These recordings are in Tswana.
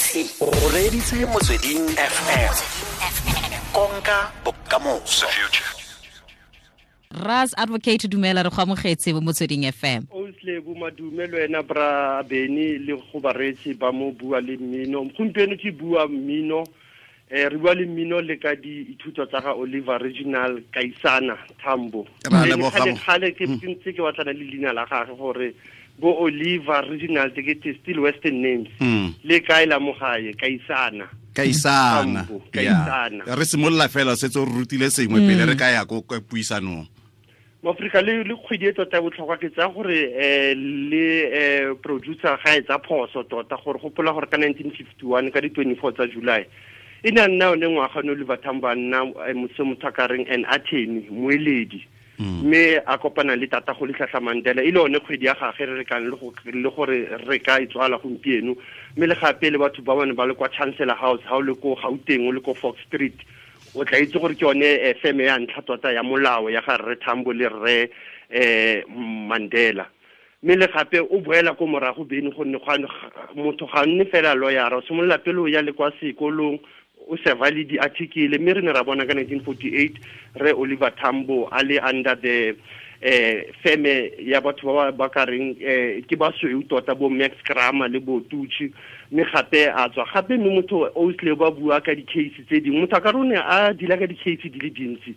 O reditse Motsweding FM. Konka bokamoso. Ras Advocate, dumela, re go amogetse mo Motsweding FM. Osle bo madume le wena bra Beni le go bareetsi ba mo Bua le Mmino. Gompieno ke bua mmino, re bua le mmino le ka diithuto tsa ga Oliver Reginald Kaisana Tambo. Ra leboga. Kgale ke ntse ke batlana le leina la gagwe gore bo Oliver Reginald ke still western names. Le kae la mo gae Kaisana. Kaisana. Tambo, Kaisana. Re simolola fela setse o re rutile sengwe pele re ka ya ko puisanong. Mo Afrika le kgwedi e tota botlhokwa ke tsa gore le producer ga e tsa phoso tota gore gopola gore ka 1951 ka di 24 tsa July e ne a nna one ngwaga no Oliver Tambo a nna motse motho a ka reng an attorney moeledi, mme a kopana le tata go Rolihlahla Mandela e le one kgwedi ya gagwe re rekang le gore re ka e tswala gompieno. Mme le gape le batho ba bane ba le kwa Chancellor House ha o le ko Gauteng o le ko Fox Street o tla itse gore ke yone feme ya ntlha tota ya molao ya ga Rre Tambo le Rre Mandela. Mme le gape o boela ko morago bene gonne motho ga nne fela lawyer, o simolola pele o ya le kwa sekolong o serva le di-article. Mme re ne ra bona ka 1948 Rre Oliver Tambo a le under the feme ya batho ba ba ka reng ke basweu tota bo Max Kramer le bo Tucci, mme gape a tswa gape. Mme motho o tle ba bua ka di-case tse dingwe, motho a ka rone a dila ka di-case di le dintsi.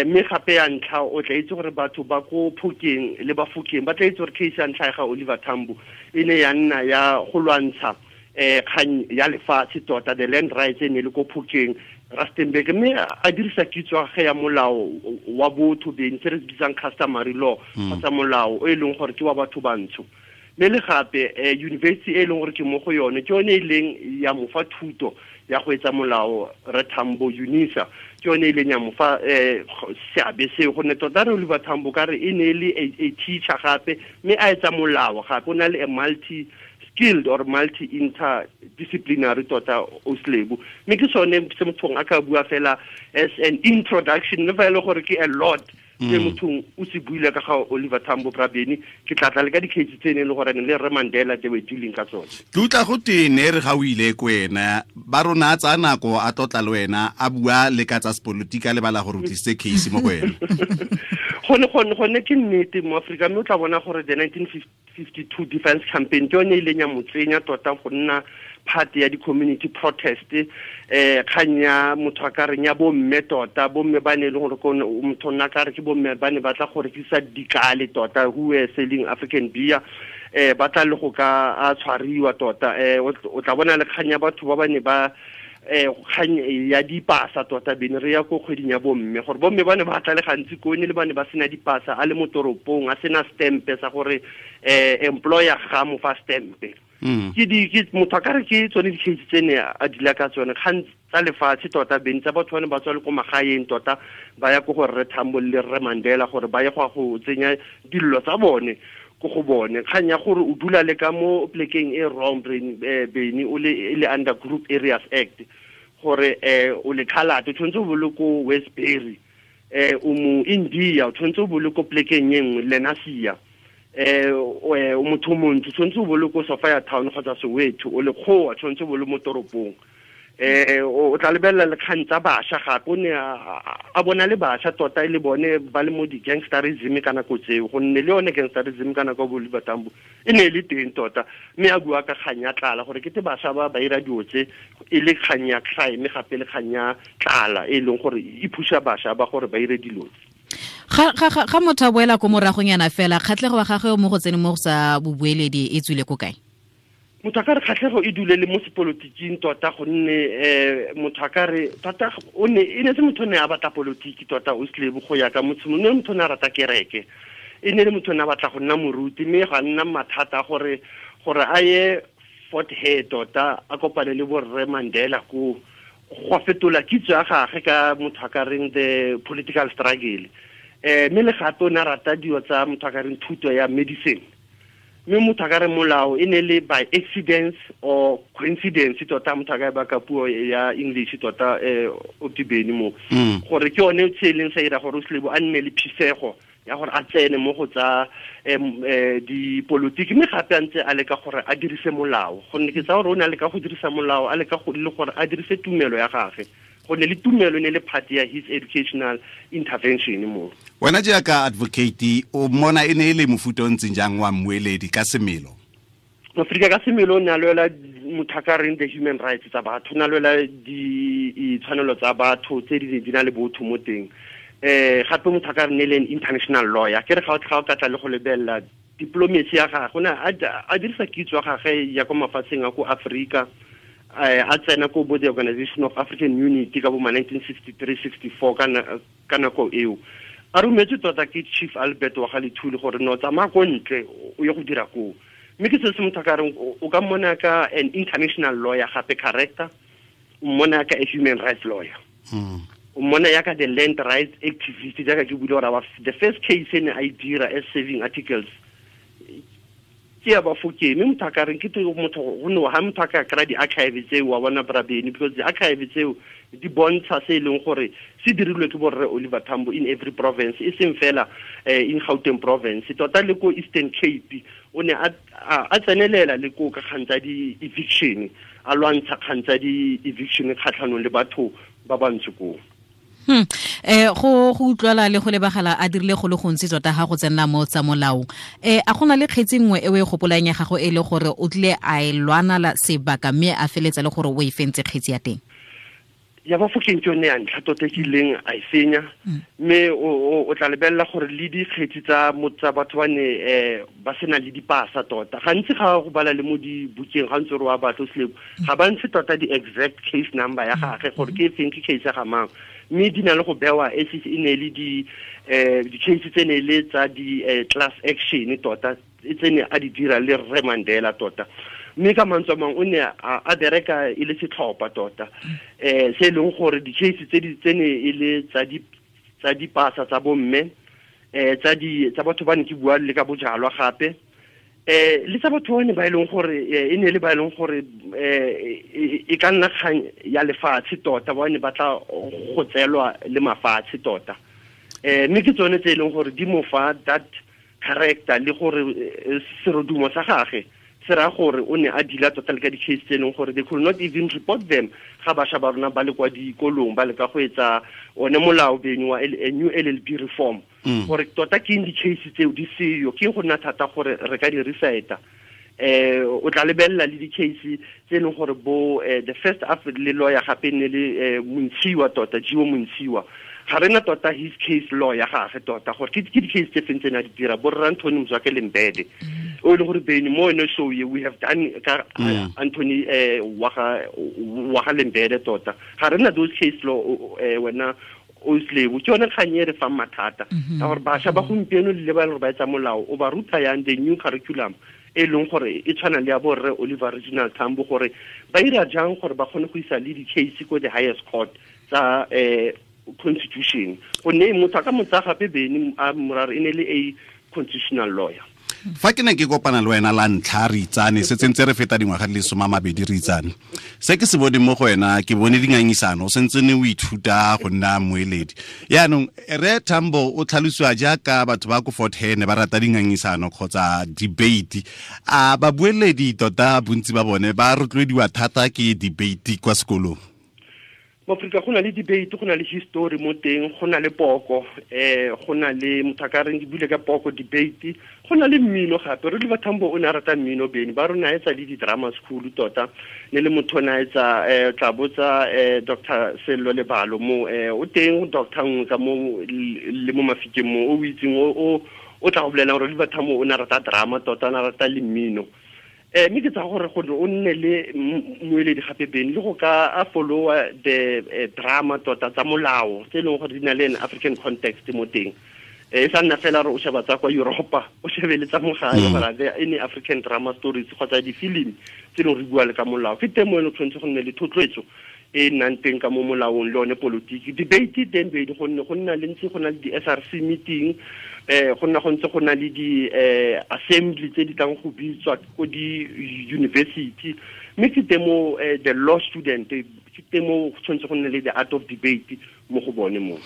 Mme gape ya ntlha o tla itse gore batho ba ko Phokeng le ba Fokeng ba tla itse gore case ya ntlha ya ga Oliver Tambo e ne ya nna ya go lwantsha kgang ya lefatshe tota, the land rights e ne le ko Phokeng Rustenburg, mme a dirisa kitso ya gagwe ya molao wa botho beng se re se bitsang customary law kgotsa molao o e leng gore ke wa batho bantsho. Mme le gape university e leng gore ke mo go yone ke yone e leng ya mo fa thuto ya go etsa molao Rre Tambo, UNISA ke yone e leng ya mo fa seabe seo, gonne tota Rre Oliver Tambo ka re e ne e le a teacher gape mme a etsa molao gape, o na le a multi skilled or multi interdisciplinary tota Oslebu. Mme ke sone se mothong a ka bua fela as an introduction, le fa e le gore ke a lot se mothong o se buile ka ga Oliver Tambo Brabeni. Ke tla tla le ka di-case tse ne e le gore le Rre Mandela they were dealing ka tsone. Ke utlwa go tene re ga o ile ko wena ba rona a tsaya nako a tlotla le wena a bua le ka tsa sepolotiki a lebala gore o tlisitse case mo go wena. Gone ke nnete mo Afrika, mme o tla bona gore the 1952 defense campaign ke yone e ileng ya mo tsenya tota go nna part ya di-community protest, kgang ya motho a ka reng ya bomme tota, bomme ba ne e leng gore motho nna ka re ke bomme ba ne ba tla go rekisa dikale tota, who were selling African beer, ba tla le go ka a tshwariwa tota. O tla bona le kgang ya batho ba ba ne ba kgang ya dipasa tota bene re ya ko kgweding ya bomme, gore bomme ba ne ba tla le gantsi ko ne le ba ne ba sena dipasa a le mo toropong a sena stempe sa gore employer ga mo fa stempe. Ke di ke motho a ka re ke tsone di-case tse ne a dila ka tsone kgang tsa lefatshe tota beng tsa batho ba ne ba tswa le ko magaeng tota ba ya ko go Rre Tambo le Rre Mandela gore ba ye go ya go tsenya dillo tsa bone ko go bone. Kgang ya gore o dula le ka mo plekeng e wrong bene o le e le under Group Areas Act gore o le Khalate o tshwanetse o bo le ko Westbury, o mo India o tshwanetse o bo le ko plekeng e nngwe Lenasia, o motho o montsho o tshwanetse o bo le ko Sophia Town kgotsa Soweto, o le kgowa tshwanetse o bo le mo toropong. O tla lebelela le kgang tsa bašwa gape, o ne a bona le bašwa tota e le bone ba le mo di-gangsterism ka nako tseo, gonne le yone gangsterism ka nako ya bo Oliver Tambo e ne e le teng tota. Mme a bua ka kgang ya tlala gore kete bašwa ba ba ira dilo tse e le kgang ya crime gape le kgang ya tlala e leng gore e phuša bašwa ba gore ba ire dilo tse. Ga motho a boela ko moragonyana fela, kgatlhego wa gagwe mo go tseneng mo go sa bobueledi e tswile ko kae? Motho a ka re kgatlhego e dule le mo sepolotiking tota, gonne motho a ka re tota o ne e ne se motho o ne a batla polotiki tota o slebo go ya ka motho, ne motho o ne a rata kereke, e ne le motho o ne a batla go nna moruti, mme ga nna mathata gore a ye Fort Hare tota a kopane le bo Rre Mandela ko go fetola kitso ya gagwe ka motho a ka reng the political struggle. Mme le gape o ne a rata dilo tsa motho a ka reng thuto ya medicine, mme motho a ka re molao e ne le by accident or coincidence tota, motho a ka e baka puo ya English tota o tibeni mo gore ke yone se e leng sa ira gore o slebo a nne le phisego ya ya gore a tsene mo go tsa dipolotiki, mme gape a ntse a leka gore a dirise molao, gonne ke tsa gore o ne a leka go dirisa molao, a leka go le gore a dirise tumelo ya gagwe, gonne le tumelo ne le part ya his educational intervention mo. Wena jaaka advocate, o mmona e ne e le mofuta o ntseng jang wa mmueledi ka semelo? Afrika ka semelo o ne a lwela mothakareng the human rights tsa batho, o ne a lwela ditshwanelo tsa batho tse di na le botho mo teng. Gape mothakareng ne le an international lawyer, ke re ga o ka tla le go lebelela diplomacy ya gagwe, o ne a dirisa kitso ya gagwe ya kwa mafatsheng a ko Afrika, a tsena ko bo the Organization of African Unity ka bo ma 1963-64 ka nako eo. A rometswe tota ke Chief Albert wa ga Lethule gore no tsamaya ko ntle o ye go dira koo. Mme ke se se motho ka reng o ka mmona ka an international lawyer gape character, o mmona ka a human rights lawyer, o mmona yaka the land rights activist, jaaka ke buile gore the first case e ne a e dira as saving articles ke ya Bafokeng. Mme motho a ka reng ke motho gonne ha motho a ka kry-a di-archive tseo wa bona Brabeni, because di-archive tseo di bontsha se e leng gore se dirilwe ke borre Oliver Tambo in every province, e seng fela in Gauteng province, tota le ko Eastern Cape o ne a tsenelela le ko ka kgang tsa di-eviction, a lwantsha kgang tsa di-eviction kgatlhanong le batho ba bantsho koo. Go utlwala le go lebagala a dirile go le gontsi tota ga go tsenela mo tsa molao. A gona le kgetsi nngwe e o e gopolang ya gago e le gore o tlile a e lwana sebaka mme a feletsa le gore o e fentse kgetsi ya teng? Ya Bafokeng ke yone ya ntlha tota ke ileng a e fenya, mme o tla lebelela gore le dikgetsi tsa batho ba ne ba sena le dipasa tota. Gantsi ga go bala le mo dibukeng ga ntse re wa batho selebo, ga ba ntshe tota di-exact case number ya gagwe gore ke efeng, ke case ya ga mang, mme di na le go bewa e ne le di-case tse ne le tsa di-class action tota tse ne a di dira le Rre Mandela tota. Mme ka mantswe a mangwe o ne a bereka e le setlhopha tota, se e leng gore di-case tse ne e le tsa dipasa tsa bomme, tsa batho ba ne ke bua le ka bojalwa gape, le tsa batho ba ne ba e leng gore e ne le ba e leng gore e ka nna kgang ya lefatshe tota, ba ne ba tla go tseelwa le mafatshe tota. Mme ke tsone tse e leng gore di mo fa that character le gore serodumo sa gagwe se raya gore o ne a dila tota le ka di-case tse e leng gore they could not even report them ga bašwa ba rona ba le kwa dikolong ba leka go etsa one molao beng wa new LLB reform, gore tota ke eng di-case tseo di seyo, ke go nna thata gore re ka di recita. O tla lebelela le di-case tse e leng gore bo the first le lawyer gape ne le Montshiwa tota, Jiwo Montshiwa, ga rena tota his case law ya gagwe tota gore ke di-case tse feng tse ne a di dira, bo rra Anthony Mzwake Lembede o e leng gore bene mo ene show ye we have done ka Anthony wa ga Lembede tota, ga rena those case law wena o slave. Ke yone kgang e re fang mathata ka gore bašwa ba gompieno le ba e leng gore ba etsa molao o ba ruta yang the new curriculum e leng gore e tshwana le ya borre Oliver Reginald Tambo, gore ba ira jang gore ba kgone go isa le di-case ko the highest court tsa constitution, gonne motho a ka mo tsaya gape bene a morare e ne le a constitutional lawyer. Fa ke ne ke kopana le wena la ntlha re itsane, se tsentse re feta dingwaga di le 20 re itsane, se ke se boneng mo go wena ke bone dingangisano, o sentse ne o ithuta go nna moeledi. Yaanong Rre Tambo o tlhalosiwa jaaka batho ba ko Fort Hare ne ba rata dingangisano kgotsa debate. A babueledi tota bontsi ba bone ba rotloediwa thata ke debate kwa sekolong? Mo Afrika go na le debate, go na le history mo teng, go na le poko, go na le motho a ka reng ke bule ka poko debate, go na le mmino gape. Re Oliver Tambo o ne a rata mmino bene, ba rona a etsa le di-drama school tota, ne le motho o ne a etsa tla botsa Dr. Sello Lebalo mo, o teng doctor nngwe ka mo le mo Mafikeng mo o itseng o tla go bolelang gore Oliver Tambo o ne a rata drama tota, o ne a rata le mmino. Mme ke tsa gore gore o nne le moeledi gape bene le go ka a followa the drama tota tsa molao tse e leng gore di na le an African context mo teng. E sa nna fela re o sheba tsa kwa Europa, o shebe le tsa mo gae, gore there any African drama stories kgotsa di-film tse e leng re bua le ka molao. Ke teng mo e leng tshwanetse go nne le thotloetso e nnang teng ka mo molaong le one politiki. Debate teng bedi gonne go nna le ntse go na le di-SRC meeting, go nna go ntse go na le di-assembly tse di tlang go bitswa ko di-university. Mme ke teng mo the law student, ke teng mo go tshwanetse go nne le the art of debate mo go bone mo.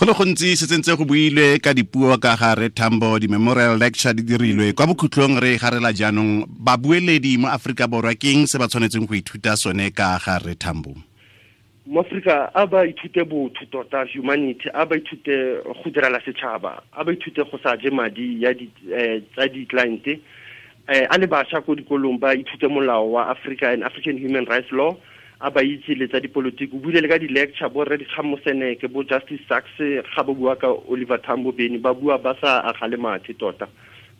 Go le gontsi se tsentse go builwe ka dipuo ka ga Re Tambo, di-memorial lecture di dirilwe. Kwa bokhutlong re garela jaanong, babueledi mo Aforika Borwa ke eng se ba tshwanetseng go ithuta sone ka ga Re Tambo? Mo Aforika a ba ithute botho tota, humanity, a ba ithute go direla setšhaba, a ba ithute go sa je madi ya di tsa di-client. A le bašwa ko dikolong ba ithute molao wa Africa and African Human Rights Law, a ba itse le tsa dipolotiki. O buile le ka di-lecture, bo Rre Dikgang Moseneke, bo Justice Sachs, ga ba bua ka Oliver Tambo Beny, ba bua ba sa agale mathe tota,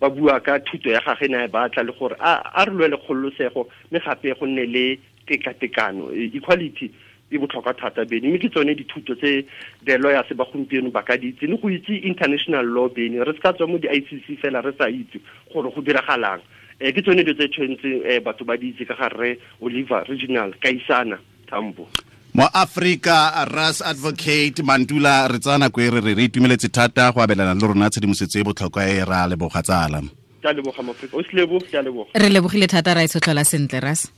ba bua ka thuto ya gage ne a e batla, le gore a re lwele kgololosego, mme gape go nne le tekatekano, equality e botlhokwa thata Beny. Mme ke tsone dithuto tse the lawyers ba gompieno ba ka di itse, le go itse international law Beny. Re se ka tswa mo di-ICC fela re sa itse gore go diragalang. Ke tsone dilo tse tshwanetseng batho ba di itse ka ga Rre Oliver Reginald Kaisana Tambo. Mo Afrika, Ras Advocate Mantula, re tsaya nako e re re itumeletse thata go abelana le rona tshedimosetso e botlhokwa e, ra leboga tsala. Ke a leboga Moafrika, o se lebo, ke a leboga. Re lebogile thata, ra e tshotlhola sentle, Ras.